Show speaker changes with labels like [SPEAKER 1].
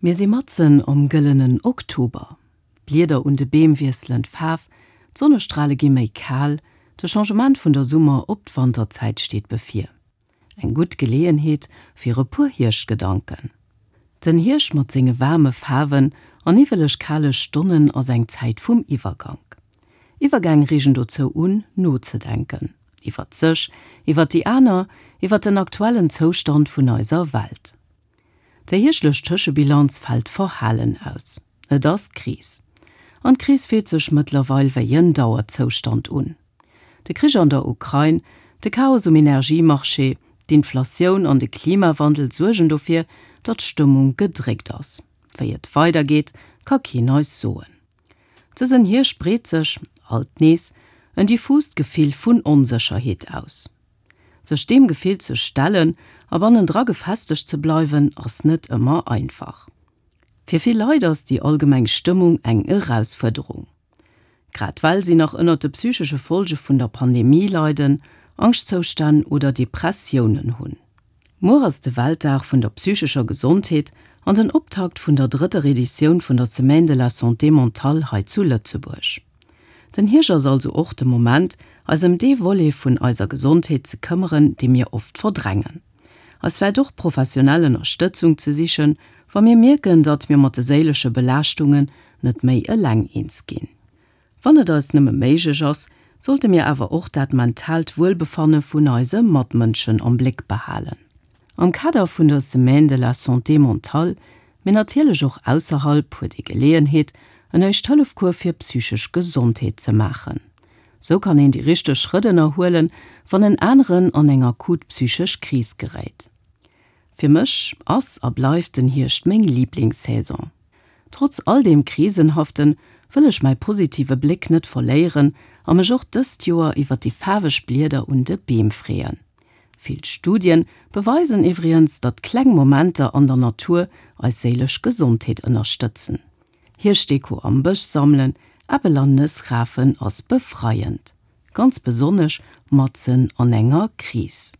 [SPEAKER 1] Mir si matzen am gëllenen Oktober. D'Blieder un de Beem wiesselen d'Faarf, d'Sonnestrale gi méi kal, de Changement vun der Summer op d'Wanterzäit steet bevir. Eng gutt Geleeënheet fir e puer Hierschtgedanken. Den Hierscht mat senge waarme Faarwen a niwweleg kale Stonnen ass eng Zäit vum Iwwergank. Iwwergäng reegen dozou un, nozedenken. Iwwert sech, iwwert déi aner, iwwert den aktuellen Zoustand vun eiser Welt. Déi hierschtlech Tëschebilanz fält verhalen aus. Et ass d'Kris. An d'Kris fillt sech mëttlerweil wéi en Dauerzoustand un. De Krich an der Ukrain, de Chaos um Energiemarché, d'Inflatioun an de Klimawandel suergen dofir, datt d'Stëmmung gedréckt ass. Wéi et weidergeet, ka keen eis soen. Dësen Hierscht breet sech, alt nees, en diffust Gefill vun Onsécherheet aus. Sech deem Gefill ze stellen a bannendra gefestegt ze bleiwen, ass net ëmmer einfach. Fir vill Leit ass déi allgemeng Stëmmung eng Erausfuerderung. Grad well si nach ënnert de psychesche Folge vun der Pandemie leiden, Angschtzoustänn oder Depressiounen hunn. Muer ass de Weltdag vun der psychescher Gesondheet an den Optakt vun der drëtter Editioun vun der Semaine de la Santé mentale hei zu Lëtzebuerg. Den Hierscht ass also och de Moment, eis ëm dee Volet vun eiser Gesondheet ze këmmeren, dee mir oft verdrängen. Eis vläicht och professionell Ënnerstëtzung ze sichen, wa mir mierken, datt mir mat de séilesche Belaaschtungen net méi eleng eens ginn. Wann et eis nëmme méiglech ass, sollte mir awer och dat mentaalt Wuelbefanne vun eise Matmënschen am Bléck behalen. Am Kader vun der Semaine de la Santé mentale, mee natierlech och ausserhalb, huet ee Geleeënheet, en Éischt-Hëllef-Cours fir psychesch Gesondheet ze maachen. Sou kann een déi richteg Schrëtt ënnerhuelen, wann en aneren an eng akut psychesch Kris geréit. Fir mech ass a bleift den Hierscht meng Liblingssaison. Trotz all deem Krisenhaften wëll ech mäi positive Bléck net verléieren a mech och dëst Joer iwwer déi faarweg Blieder un de Beem freeën. Vill Studien beweisen iwwriens, datt kleng Momenter an der Natur eis séilesch Gesondheet ënnerstëtzen. Hierschtdeko am Bësch sammelen, Äppel an Nëss rafen ass befreiend. Ganz besonnesch matzen an enger Kris.